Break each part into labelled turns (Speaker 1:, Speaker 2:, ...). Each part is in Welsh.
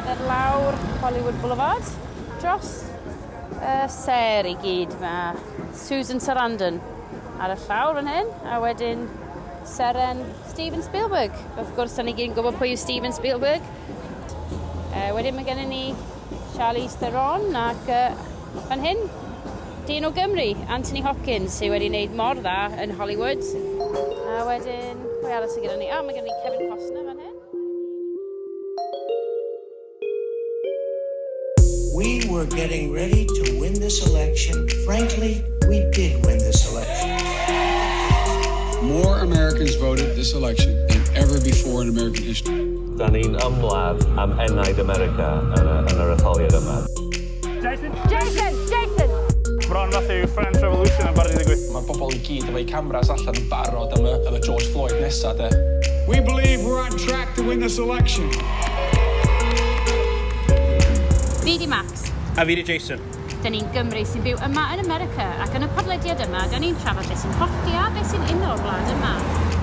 Speaker 1: cerdded lawr Hollywood Boulevard dros y sêr i gyd. Mae Susan Sarandon ar y llawr fan hyn, a wedyn seren Steven Spielberg. Wrth gwrs, da ni gyd yn gwybod pwy yw Steven Spielberg. Wedyn mae gennym ni Charlize Theron ac fan hyn, dyn o Gymru, Anthony Hopkins, sydd wedi wneud mor dda yn Hollywood. A wedyn, pwy arall sydd gyda ni? Ah, mae gennym ni Kevin Costner fan hyn.
Speaker 2: We were getting ready to win this election. Frankly, we did win this election.
Speaker 3: More Americans voted this election than ever before in American history.
Speaker 4: Da ni'n ymladd am enaid America yn yr etholiad yma.
Speaker 5: Jason!
Speaker 1: Jason! Jason!
Speaker 5: Bron fath yw French Revolution yn barod i ddigwydd.
Speaker 6: Mae'r bobl i gyd efo'u cameras allan yn barod am y George Floyd nesa, de.
Speaker 3: We believe we're on track to win this election.
Speaker 1: Fi di Max.
Speaker 5: A fi di Jason.
Speaker 1: Da ni'n Gymru sy'n byw yma yn America, ac yn y podlediad yma, da ni'n trafod beth sy'n hollti a beth sy'n uno'r wlad yma.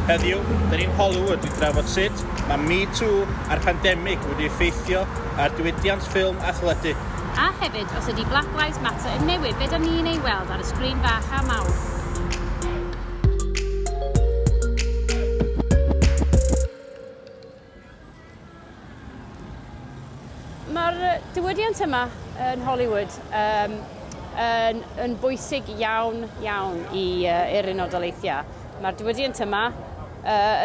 Speaker 5: Heddiw, da ni'n Hollywood i drafod sut mae Me Too a'r pandemig wedi effeithio ar diwydiant ffilm a theledu.
Speaker 1: A hefyd, os ydy Black Lives Matter yn newid, be da ni'n ei weld ar y sgrin fach a mawr. Mae'r diwydiant yma yn Hollywood yn bwysig iawn, iawn i'r Unol Daleithiau. Mae'r diwydiant yma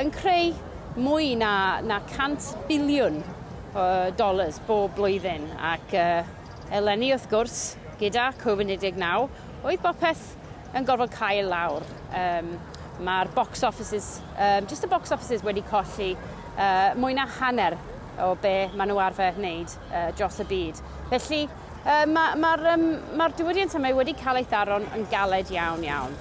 Speaker 1: yn creu mwy na 100 biliwn o dollars bob blwyddyn. Ac eleni, wrth gwrs, gyda Covid-19, oedd bopeth yn gorfod cael lawr. Mae'r box offices, just y box offices wedi colli mwy na hanner o be maen nhw arfer wneud dros y byd. Felly, mae'r diwydiant yma wedi cael ei tharo'n yn galed iawn, iawn.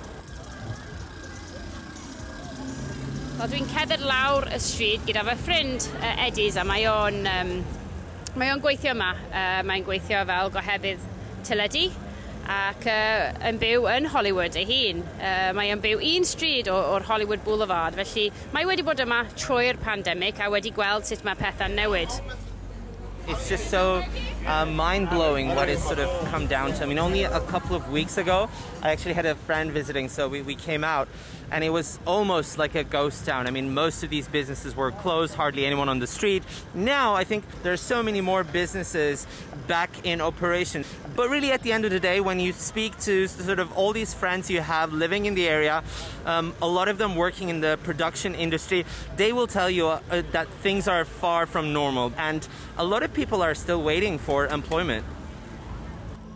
Speaker 1: Wel, dwi'n cerdded lawr y stryd gyda fy ffrind Eddies, a mae o'n gweithio yma. Mae'n gweithio fel gohebydd teledu ac yn byw yn Hollywood ei hun. Mae o'n byw un stryd o'r Hollywood Boulevard, felly mae wedi bod yma trwy'r pandemig a wedi gweld sut mae pethau'n newid.
Speaker 7: It's just so mind-blowing what it's sort of come down to. I mean, only a couple of weeks ago, I actually had a friend visiting, so we came out, and it was almost like a ghost town. I mean, most of these businesses were closed, hardly anyone on the street. Now, I think there's so many more businesses back in operation. But really, at the end of the day, when you speak to sort of all these friends you have living in the area, a lot of them working in the production industry, they will tell you that things are far from normal. And a lot of people are still waiting for employment.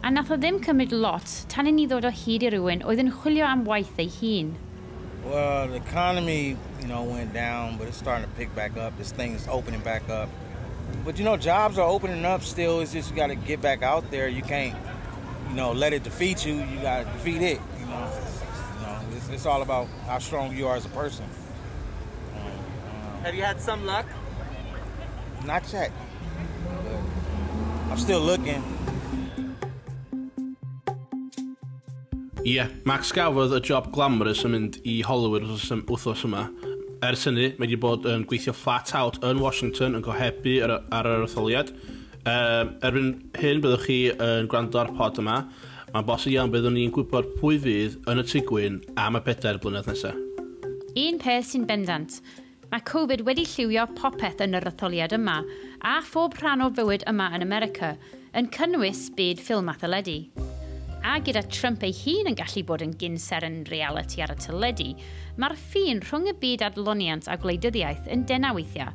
Speaker 1: A nath o ddim cymryd lot tan i ni ddod o hyd i rywun oedd yn chwilio am waith ei hun.
Speaker 8: Well, the economy went down, but it's starting to pick back up. This thing's opening back up. But jobs are opening up still. It's just you got to get back out there. You can't let it defeat you. You got to defeat it. It's all about how strong you are as a person.
Speaker 7: Have you had some luck?
Speaker 8: Not yet. But I'm still looking.
Speaker 9: Ie, yeah, Max gafodd y job glamorous yn mynd i Hollywood wythnos yma. Ers hynny, mae wedi bod yn gweithio flat out yn Washington yn gohebu ar yr etholiad. Erbyn hyn byddwch chi yn gwrando ar pod yma. Mae'n bosib iawn byddwn ni'n gwybod pwy fydd yn y Tŷ Gwyn am y 4 blynedd nesaf.
Speaker 1: Un peth sy'n bendant, mae Covid wedi lliwio popeth yn yr etholiad yma, a phob rhan o fywyd yma yn America, yn cynnwys byd ffilm a theledu. A gyda Trump ei hun yn gallu bod yn gyn-seren reality ar y teledu, mae'r ffin rhwng y byd adloniant a gwleidyddiaeth yn denau weithiau.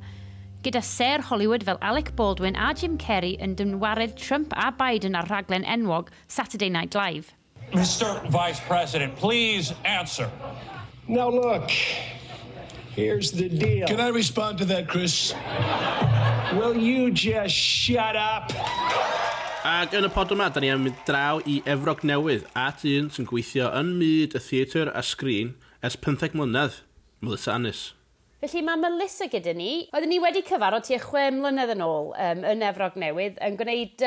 Speaker 1: Gyda sêr Hollywood fel Alec Baldwin a Jim Carrey yn dynwared Trump a Biden ar rhaglen enwog Saturday Night Live.
Speaker 10: Mr. Vice President, please answer.
Speaker 11: Now, look, here's the deal.
Speaker 3: Can I respond to that, Chris?
Speaker 11: Will you just shut up?
Speaker 9: Ac yn y pod yma, da ni am mynd draw i Efrog Newydd at un sy'n gweithio yn myd y theatr a sgrin ers 15 mlynedd, Melissa Annis.
Speaker 1: Felly mae Melissa gyda ni. Oedden ni wedi cyfarfod tua 6 mlynedd yn ôl yn Efrog Newydd yn gwneud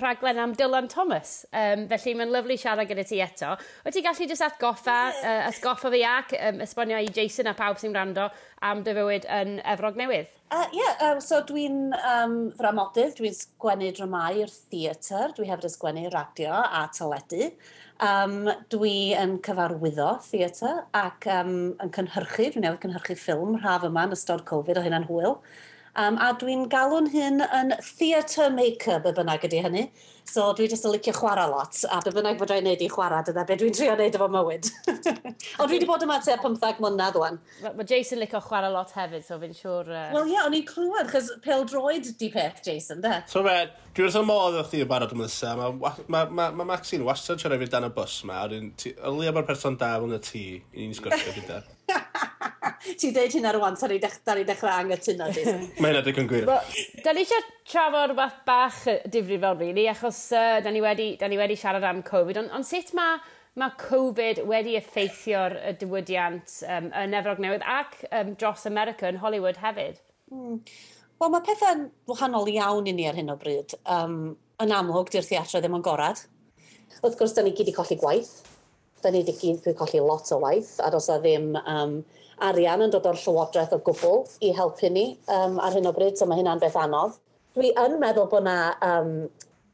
Speaker 1: rhaglen am Dylan Thomas. Felly mae'n lyfli siarad gyda ti eto. Wyt ti gallu jyst atgoffa fi ac esbonio i Jason a pawb sy'n gwrando am dy fywyd yn Efrog Newydd?
Speaker 12: Yeah, so dwi'n ddramodydd, dwi'n sgwennu dramau i'r theatr, dwi hefyd yn sgwennu radio a teledu. Dwi yn cyfarwyddo theatr ac yn cynhyrchu, dwi'n newydd cynhyrchu ffilm rhaf yma yn ystod Covid, o hynna'n hwyl. A dwi'n galw'n hyn yn theatre maker, be bynnag ydy hynny. So dwi jyst yn licio chwarae lot, a be bynnag fedra i wneud i chwarae, dyna be dwi'n trio wneud efo mywyd. Ond dwi wedi bod yma tua 15 mlynedd wan.
Speaker 1: Mae Jason licio chwarae lot hefyd, so fi'n siŵr.
Speaker 12: Wel ie, yeah, o'n i'n clywed, chos pêl-droed di peth, Jason, de?
Speaker 9: So fe, dwi wrth y modd efo chdi yn barod, Melissa. Mae Maxine wastad yn siarad fi dan y bws ma, a o leia mae'r person da fel na ti i ni'n sgwrsio gyda.
Speaker 12: Ti'n deud hynna rwan, da ni dechrau anghytuno, Jason.
Speaker 9: Mae hynna digon gwir.
Speaker 1: Well, da ni eisiau trafod rhywbeth bach difrifol, really, achos da ni wedi siarad am Covid, ond sut mae Covid wedi effeithio'r diwydiant yn Efrog Newydd ac dros America yn Hollywood hefyd?
Speaker 12: Wel, mae pethau'n wahanol iawn i ni ar hyn o bryd. Yn amlwg, di'r theatr ddim yn gorad. Wrth gwrs, da ni gyd i colli gwaith. Da ni wedi gyd wedi colli lot o waith, a does na ddim arian yn dod o'r llywodraeth o gwbl i helpu ni ar hyn o bryd, so mae hynna'n beth anodd. Dwi yn meddwl bod mae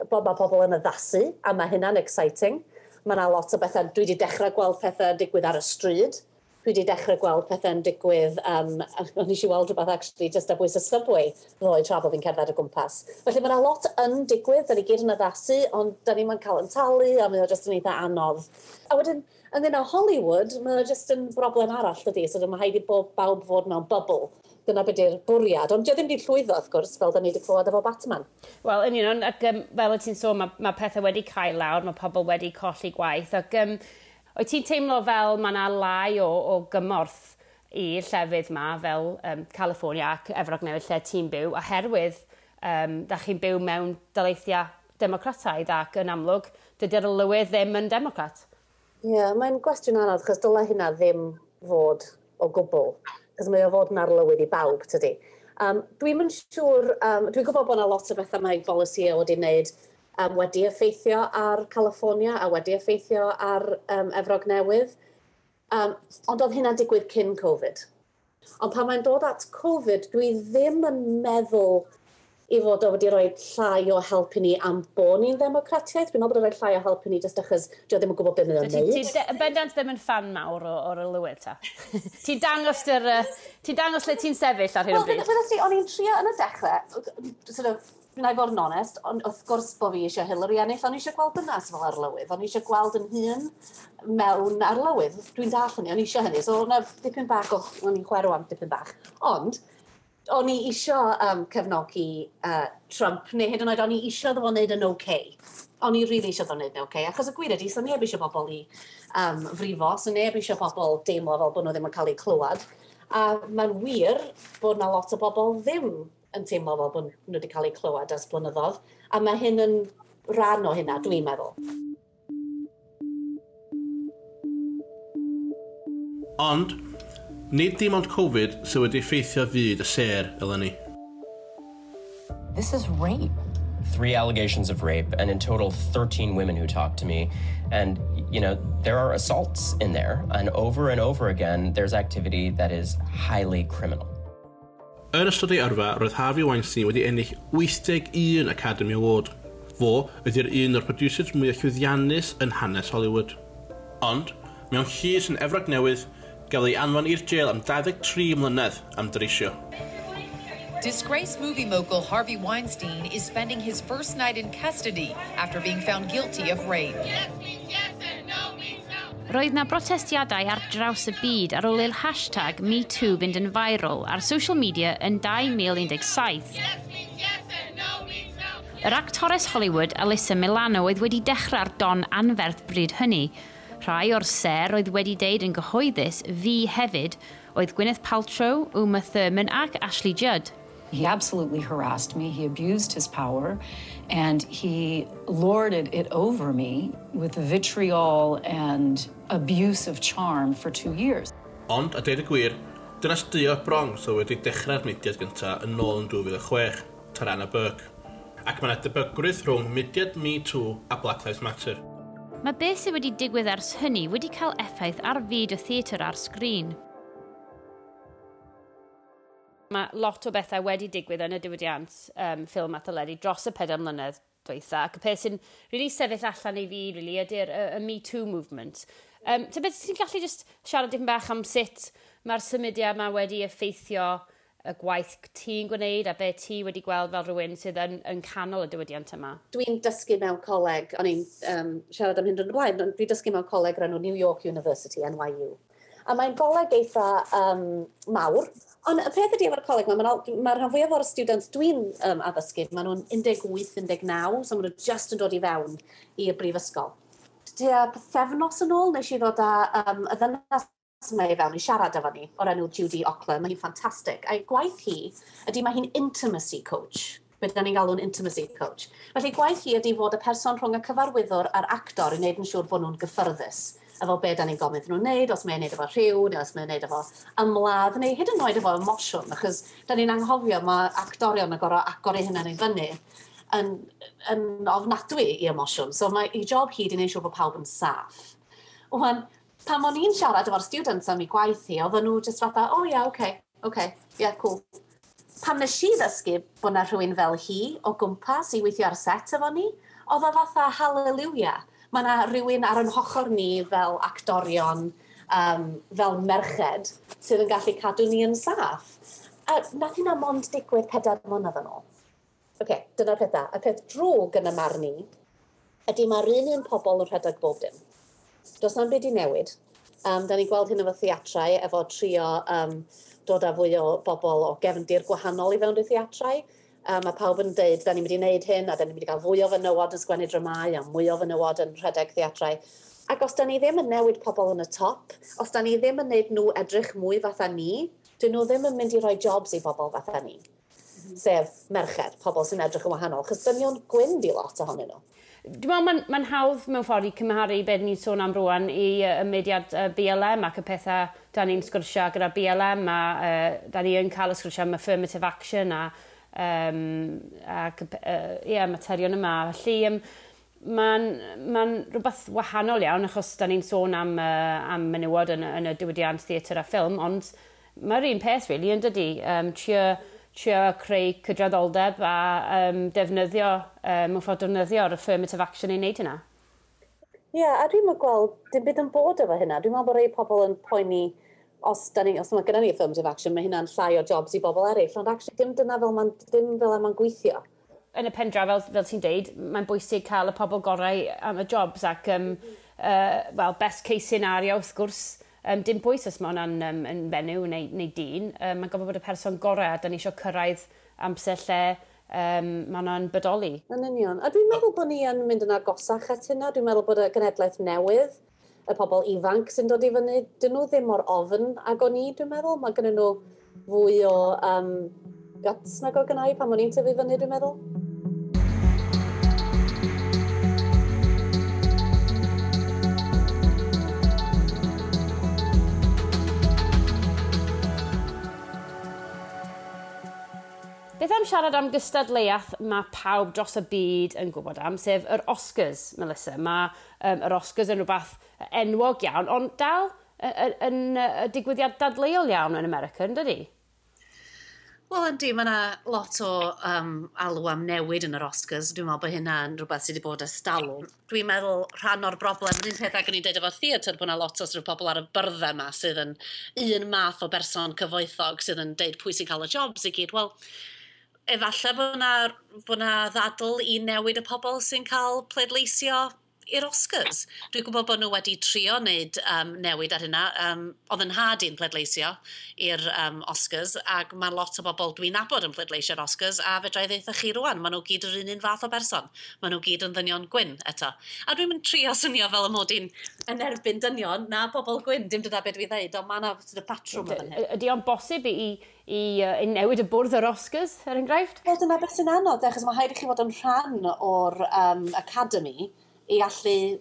Speaker 12: pobl yn addasu, a mae hynna'n exciting. Mae yna lot o bethau, dwi wedi dechrau gweld pethau digwydd ar y stryd. Dwi wedi dechrau gweld pethau'n digwydd, nes i weld rhywbeth actually just ar bwys y subway ddoe tra bod fi'n cerdded o gwmpas. Felly mae yna lot yn digwydd, da ni gyd yn addasu, ond da ni'n cael yn talu, a mae o just yn eitha anodd. A wedyn, ynglyn â Hollywood, mae o just yn broblem arall, dydy, so mae rhaid i bob bawb fod mewn bubble. Dyna beth yw'r bwriad, ond dio ddim wedi llwyddo, wrth gwrs, fel da ni wedi clywed efo Batman.
Speaker 1: Wel, yn union, ac fel wyt ti'n sôn, mae pethau wedi cael lawr, mae pobl wedi colli gwaith, ac wyt ti'n teimlo fel mae yna lai o gymorth i'r llefydd ma, fel California ac Efrog Newydd lle ti'n byw, oherwydd da chi'n byw mewn daleithiau democrataidd ac yn amlwg, dydy'r lywydd ddim yn democrat.
Speaker 12: Ie, yeah, mae'n gwestiwn anodd, chos dylai hynna ddim fod o gwbl. Cos mae o fod yn arlywydd i bawb, tydi. Dwi'm yn siŵr, dwi'n gwybod bod yna lot o bethau mae bolisi wedi wneud wedi effeithio ar California a wedi effeithio ar Efrog Newydd. Ond oedd hynna'n digwydd cyn Covid. Ond pan mae'n dod at Covid, dwi ddim yn meddwl i fod o wedi rhoi llai o help i ni am bod ni'n ddemocratiaeth. Dwi'n meddwl bod o'n rhoi llai o help i ni jyst achos dio ddim yn gwybod beth mae'n
Speaker 1: Ti'n
Speaker 12: wneud.
Speaker 1: ti bendant ddim yn fan mawr o'r lywydd, ta? Ti'n dangos lle ti'n sefyll ar hyn o
Speaker 12: Wel,
Speaker 1: bryd?
Speaker 12: fel ti, o'n i'n trio yn y dechrau, sort of, wna i fod yn onest, ond wrth gwrs bod fi eisiau Hillary ennill, o'n i eisiau gweld dynas fel arlywydd, o'n i eisiau gweld yn hun mewn arlywydd. Dwi'n dall hynny, o'n i eisiau hynny, so o'na dipyn bach o, o'n i'n chwerw am dipyn bach. Ond, o'n i eisiau cefnogi Trump, neu hyd yn oed o'n i eisiau iddo fo wneud yn okay. O'n i really eisiau iddo wneud yn okay, achos y gwir ydy, so neb eisiau bobl i frifo, so neb eisiau bobl deimlo fel bod nhw ddim yn cael eu clywed. A mae'n wir bod na lot o bobl ddim yn teimlo fel bod nhw wedi cael eu clywed ers blynyddoedd. A mae hyn yn rhan o hynna, dwi'n meddwl.
Speaker 9: Ond, nid dim ond Covid sydd wedi effeithio fyd y sêr eleni.
Speaker 13: This is rape.
Speaker 14: Three allegations of rape, and in total, 13 women who talked to me. And there are assaults in there. And over again, there's activity that is highly criminal.
Speaker 9: Yn ystod ei yrfa, roedd Harvey Weinstein wedi ennill 81 Academy Award. Fo ydy'r un o'r producers mwyaf llwyddiannus yn hanes Hollywood. Ond, mewn llys yn Efrog Newydd, gafodd ei anfon i'r jail am 23 mlynedd am dreisio.
Speaker 15: Disgraced movie mogul Harvey Weinstein is spending his first night in custody after being found guilty of rape.
Speaker 1: Roedd na brotestiadau ar draws y byd ar ôl i'r hashtag MeToo fynd yn viral ar social media yn 2017. Yr actores Hollywood Alyssa Milano oedd wedi dechrau'r don anferth bryd hynny. Rhai o'r ser oedd wedi deud yn gyhoeddus fi hefyd oedd Gwyneth Paltrow, Uma Thurman ac Ashley Judd.
Speaker 16: He absolutely harassed me. He abused his power and he lorded it over me with vitriol and abuse of charm for 2 years.
Speaker 9: Ond, a deud y gwir, dynas du o'r Bronx oedd wedi dechrau'r mudiad gyntaf yn ôl yn 2006, Tarana Burke. Ac mae yna debygrwydd rhwng mudiad Me Too a Black Lives Matter.
Speaker 1: Mae beth sydd wedi digwydd ers hynny wedi cael effaith ar fyd y theatr ar sgrin. Mae lot o bethau wedi digwydd yn y diwydiant ffilm a theledu dros y 4 mlynedd dwytha, ac y peth sy'n really sefyll allan i fi really, ydy'r y Me Too movement. Tybed ti'n gallu just siarad dipyn bach am sut mae'r symudiad yma wedi effeithio y gwaith ti'n gwneud a be ti wedi gweld fel rhywun sydd yn canol y diwydiant yma?
Speaker 12: Dwi'n dysgu mewn coleg, o'n i'n siarad am hyn yn y blaen, ond dwi'n dysgu mewn coleg o'r enw New York University, NYU. A mae'n goleg eitha mawr. Ond y peth ydy efo'r coleg, mae ma rhan fwyaf o'r students dwi'n addysgu, maen nhw'n 18, 19, so maen nhw just yn dod i fewn i'r brifysgol. Tua pythefnos yn ôl, nes i ddod â y ddynas yma i fewn i siarad efo ni, o'r enw Judy Ockler, mae hi'n ffantastig. A'i gwaith hi ydy mae hi'n intimacy coach. Be da ni'n galw'n intimacy coach. Felly gwaith hi ydy fod y person rhwng y cyfarwyddwr a'r actor i wneud yn siŵr bod nhw'n gyffyrddus efo be da ni'n gofyn iddyn nhw'n wneud, os mae'n wneud efo rhyw, neu os mae'n wneud efo ymladd, neu hyd yn oed efo emosiwn, achos da ni'n anghofio mae actorion yn gorfod agor eu hunain i fyny yn ofnadwy i emosiwn. So mae ei job hi di wneud siŵr bod pawb yn saff. Wan, pan o'n i'n siarad efo'r students am ei gwaith hi, oedden nhw just fatha, oh yeah, okay, yeah, cool. Pan nes i ddysgu bod na rhywun fel hi o gwmpas i weithio ar set efo ni, oedd o fatha hallelujah. Mae yna rhywun ar ein hochr ni fel actorion, fel merched, sydd yn gallu cadw ni yn saff. A nath hynna mond digwydd 4 mlynedd yn ôl. Oce, dyna'r pethau. Y peth drwg yn y marn i ydy mae'r un pobl yn rhedeg bob dim. Does na'm byd i newid. Da ni'n gweld hyn efo theatrau, efo trio dod â fwy o bobl o gefndir gwahanol i fewn i'r theatrau. Mae pawb yn deud, da ni'n mynd i wneud hyn, a da ni'n mynd i gael fwy o fenywod yn sgwennu dramau, a mwy o fenywod yn rhedeg theatrau. Ac os da ni ddim yn newid pobl yn y top, os da ni ddim yn wneud nhw edrych mwy fatha ni, dyn nhw ddim yn mynd i roi jobs i bobl fatha ni. Sef merched, pobl sy'n edrych yn wahanol, chos dynion gwyn di lot ohonyn nhw.
Speaker 1: Dwi'n meddwl mae'n hawdd mewn ffordd i cymharu beth ni'n sôn am rwan i y mudiad BLM ac y pethau da ni'n sgwrsio gyda BLM a da ni yn cael y sgwrsio am affirmative action a ac materion yma. Felly mae'n rhywbeth wahanol iawn achos da ni'n sôn am menywod yn y diwydiant theatr a ffilm, ond mae'r un peth really yn dydi. Trio creu cydraddoldeb a defnyddio, mewn ffordd defnyddio'r affirmative action i wneud hynna.
Speaker 12: Ie, yeah, a dwi'n meddwl gweld dim byd yn bod efo hynna. Dwi'n meddwl bod rhai pobl yn poeni os mae gennym ni affirmative action, mae hynna'n llai o jobs i bobl eraill, ond actually dim dyna fel mae'n gweithio.
Speaker 1: Yn y pen draw, fel ti'n deud, mae'n bwysig cael y pobl gorau am y jobs ac, well, best case scenario, wrth gwrs, dim bwys os mae hwnna'n yn fenyw neu dyn, mae'n gofod bod y person gorau a da ni eisiau cyrraedd amser lle mae hwnna'n bodoli.
Speaker 12: Yn union. A dwi'n meddwl bod ni yn mynd yn agosach at hynna. Dwi'n meddwl bod y genedlaeth newydd, y pobl ifanc sy'n dod i fyny, dyn nhw ddim mor ofn ag o'n i, dwi'n meddwl. Mae gennyn nhw fwy o guts nag o gynna i pan o'n i'n tyfu fyny, dwi'n meddwl.
Speaker 1: Beth am siarad am gystadleuaeth mae pawb dros y byd yn gwybod am, sef yr Oscars, Melissa. Mae yr Oscars yn rhywbeth enwog iawn, ond dal yn digwyddiad dadleuol iawn yn America, yn dydi?
Speaker 12: Wel, yndi, mae yna lot o alw am newid yn yr Oscars. Dwi'n meddwl bod hynna'n rhywbeth sydd wedi bod ers talwm. Dwi'n meddwl rhan o'r broblem, yr un peth ag o'n i'n deud efo'r theatr, bod yna lot o sort of pobl ar y byrddau yma sydd yn un math o berson cyfoethog sydd yn deud pwy sy'n cael y jobs i gyd. Wel, efallai bod 'na ddadl i newid y pobl sy'n cael pleidleisio i'r Oscars. Dwi'n gwybod bod nhw wedi trio wneud newid ar hynna. Oedd yn nhad i'n pleidleisio i'r Oscars, ac mae lot o bobl dwi'n nabod yn pleidleisio i'r Oscars, a fedra i ddeutha chi rwan, maen nhw gyd yr un fath o berson. Maen nhw gyd yn ddynion gwyn eto. A dwi'n mynd trio swnio fel y mod i'n yn erbyn dynion na bobl gwyn, dim dyna beth dwi ddeud, ond mae yna sort of patrwm yn hyn.
Speaker 1: Ydy o'n bosib i newid y bwrdd yr Oscars, er enghraifft?
Speaker 12: Wel, dyna beth sy'n anodd, achos mae rhaid i chi fod yn rhan o'r academy i allu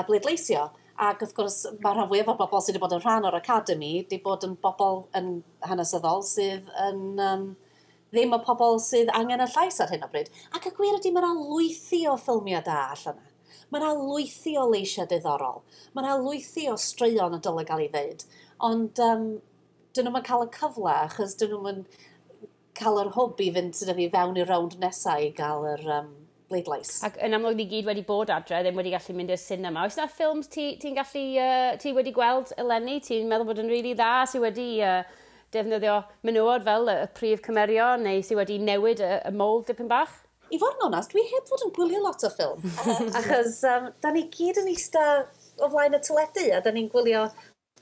Speaker 12: bleidleisio. Ac wrth gwrs, mae rhan fwyaf o bobl sydd wedi bod yn rhan o'r academy wedi bod yn bobl yn hanesyddol sydd yn ddim y pobl sydd angen y llais ar hyn o bryd. Ac y gwir ydy, mae yna lwythi o ffilmiau da allan yna. Mae yna lwythi o leisiau diddorol. Mae yna lwythi o straeon y dylai gael ei ddeud. Ond dyn nhw'n cael y cyfle, achos dyn nhw'n cael yr hwb i fynd sort of, i fewn i'r rownd nesaf i gael yr bleidlais.
Speaker 1: Ac yn amlwg ni gyd wedi bod adre, ddim wedi gallu mynd i'r cinema. Oes yna ffilms ti gallu, ti wedi gweld eleni, ti'n meddwl bod yn rili really dda, sydd wedi defnyddio menywod fel y prif cymerion, neu sydd wedi newid y mold dipyn bach?
Speaker 12: I fod yn onast, dwi heb fod yn gwylio lot o ffilm. Achos da ni gyd yn eista o flaen y teledu a da ni'n gwylio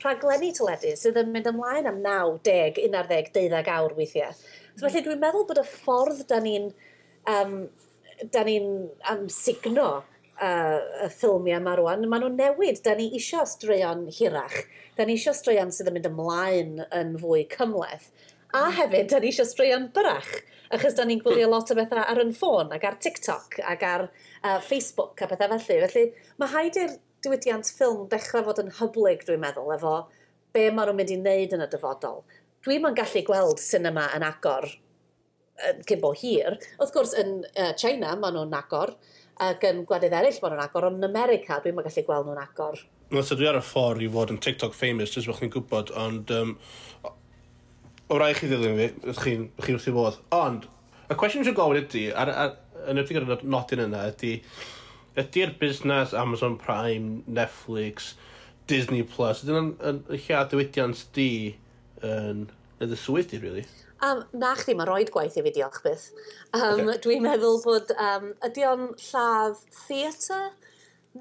Speaker 12: rhaglenni teledu sydd yn mynd ymlaen am 9, 10, 11, 12 awr weithiau. So felly dwi'n meddwl bod y ffordd da ni'n signo y ffilmiau yma rwan, maen nhw'n newid. Da ni isio straeon hirach. Da ni isio straeon sydd yn mynd ymlaen yn fwy cymhleth. A hefyd, da ni isio straeon byrach. Achos da ni'n gwylio lot o bethau ar yn ffôn ac ar TikTok ac ar Facebook a bethau felly. Felly mae rhaid i'r diwydiant ffilm dechrau fod yn hyblyg, dwi'n meddwl, efo be maen nhw'n mynd i wneud yn y dyfodol. Dwi'm yn gallu gweld cinema yn agor cyn bo hir. Wrth gwrs, yn China, maen nhw'n agor, ac yn gwledydd eraill maen nhw'n agor, ond yn America, dwi'm yn gallu gweld nhw'n agor.
Speaker 9: Wel, so dwi ar y ffordd i fod yn TikTok famous, jyst bod chi'n gwybod, ond o rai chi ddilyn fi, ydych chi'n wrth i fodd. Ond, y cwestiwn sy'n gofyn ydy, yn ydych gyda'r nodyn yna, ydy, ydy'r busnes Amazon Prime, Netflix, Disney Plus, ydyn nhw'n lle diwydiant di yn y swydd di, really?
Speaker 12: Na chdi, mae roed gwaith i fi, diolch byth. Okay. Dwi'n meddwl bod, ydy o'n lladd theatr?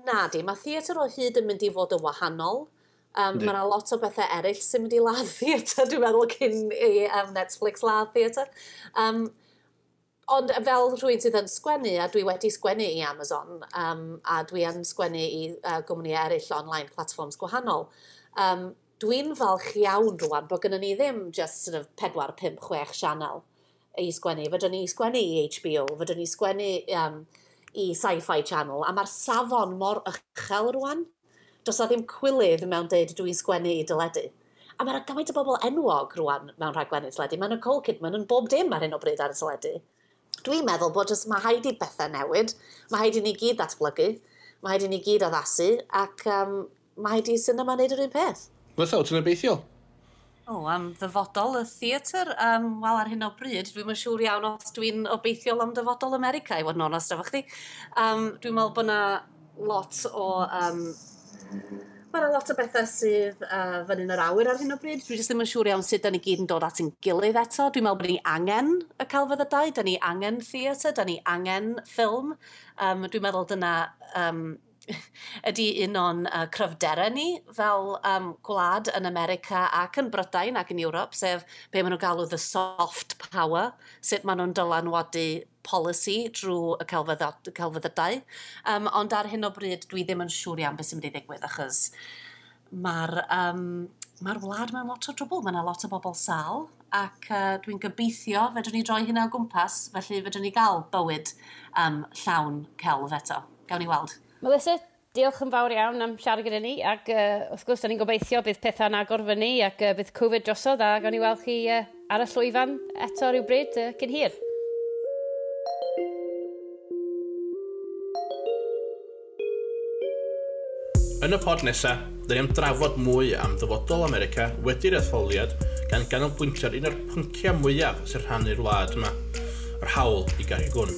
Speaker 12: Na di, mae theatr o hyd yn mynd i fod yn wahanol. Mae yna lot o bethau eraill sy'n mynd i ladd theatr, dwi'n meddwl, cyn i Netflix ladd theatr. Ond fel rhywun sydd yn sgwennu, a dwi wedi sgwennu i Amazon, a dwi yn sgwennu i gwmni eraill online platforms gwahanol, dwi'n falch iawn rwan bod gennym ni ddim just sort of 4, 5, 6 sianel i sgwennu. Fydwn ni sgwennu i HBO, fydwn ni sgwennu i Sci-Fi Channel, a mae'r safon mor uchel rwan. Does na ddim cwilydd mewn deud dwi'n sgwennu i deledu. A mae'na gymaint o bobl enwog rwan mewn rhaglenni teledu. Mae Nicole Kidman yn bob dim ar hyn o bryd ar y teledu. Dwi'n meddwl bod jyst mae rhaid i bethau newid, mae rhaid i ni gyd ddatblygu, mae rhaid i ni gyd addasu, ac mae rhaid i cinema wneud yr un peth.
Speaker 9: Fatha, wyt ti'n obeithiol?
Speaker 12: O, am ddyfodol y theatr, wel, ar hyn o bryd, dwi'm yn siŵr iawn os dwi'n obeithiol am dyfodol America, i fod yn onest efo chdi. Dwi'n meddwl bod yna lot o... Mae yna lot o bethau sydd fyny yn yr awyr ar hyn o bryd. Dwi jyst ddim yn siŵr iawn sut da ni gyd yn dod at ein gilydd eto. Dwi'n meddwl bod ni angen y celfyddydau, da ni angen theatr, da ni angen ffilm. Dwi'n meddwl dyna ydy un o'n cryfderau ni fel gwlad yn America ac yn Brydain ac yn Ewrop, sef be maen nhw'n galw the soft power, sut maen nhw'n dylanwadu policy drwy y celfyddydau. Ond ar hyn o bryd, dwi ddim yn siŵr iawn beth sy'n mynd i ddigwydd, achos mae'r ma wlad mewn lot o drwbl. Mae yna lot o bobl sal, ac dwi'n gobeithio fedrwn ni droi hynna o gwmpas, felly fedrwn ni gael bywyd llawn celf eto. Gawn ni weld.
Speaker 1: Melissa, diolch yn fawr iawn am siarad gyda ni, ac wrth gwrs, da ni'n gobeithio bydd pethau'n agor fyny ac bydd Covid drosodd a gawn ni weld chi ar y llwyfan eto rhywbryd cyn hir.
Speaker 9: Yn y pod nesaf, dyn ni am drafod mwy am ddyfodol America wedi'r etholiad gan ganolbwyntio ar un o'r pynciau mwyaf sy'n rhannu'r wlad yma, yr hawl i gario gwn.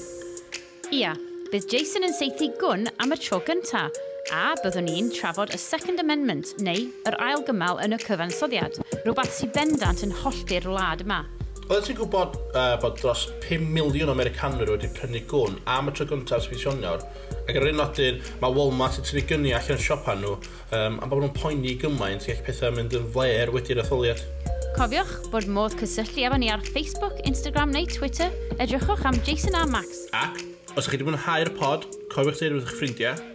Speaker 1: Ia, bydd Jason yn saethu gwn am y tro gyntaf, a byddwn ni'n trafod y Second Amendment, neu yr ail gymal yn y cyfansoddiad, rhywbeth sy'n bendant yn hollti'r wlad yma.
Speaker 9: Oeddet ti'n gwybod bod dros 5 miliwn o Americanwyr wedi prynu gwn am y tro gyntaf ers fis Ionawr? Ac ar yr un nodyn, mae Walmart yn tynnu gyni allan siopa nhw, am bod nhw'n poeni gymaint gall pethau mynd yn flêr wedi'r etholiad.
Speaker 1: Cofiwch bod modd cysylltu efo ni ar Facebook, Instagram neu Twitter. Edrychwch am Jason a Max.
Speaker 9: Ac, os ydych chi wedi mwynhau'r pod, cofiwch dweud wrth eich ffrindiau.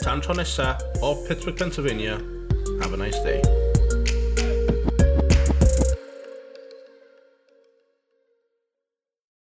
Speaker 9: Tan tro nesa, o Pittsburgh, Pennsylvania, have a nice day.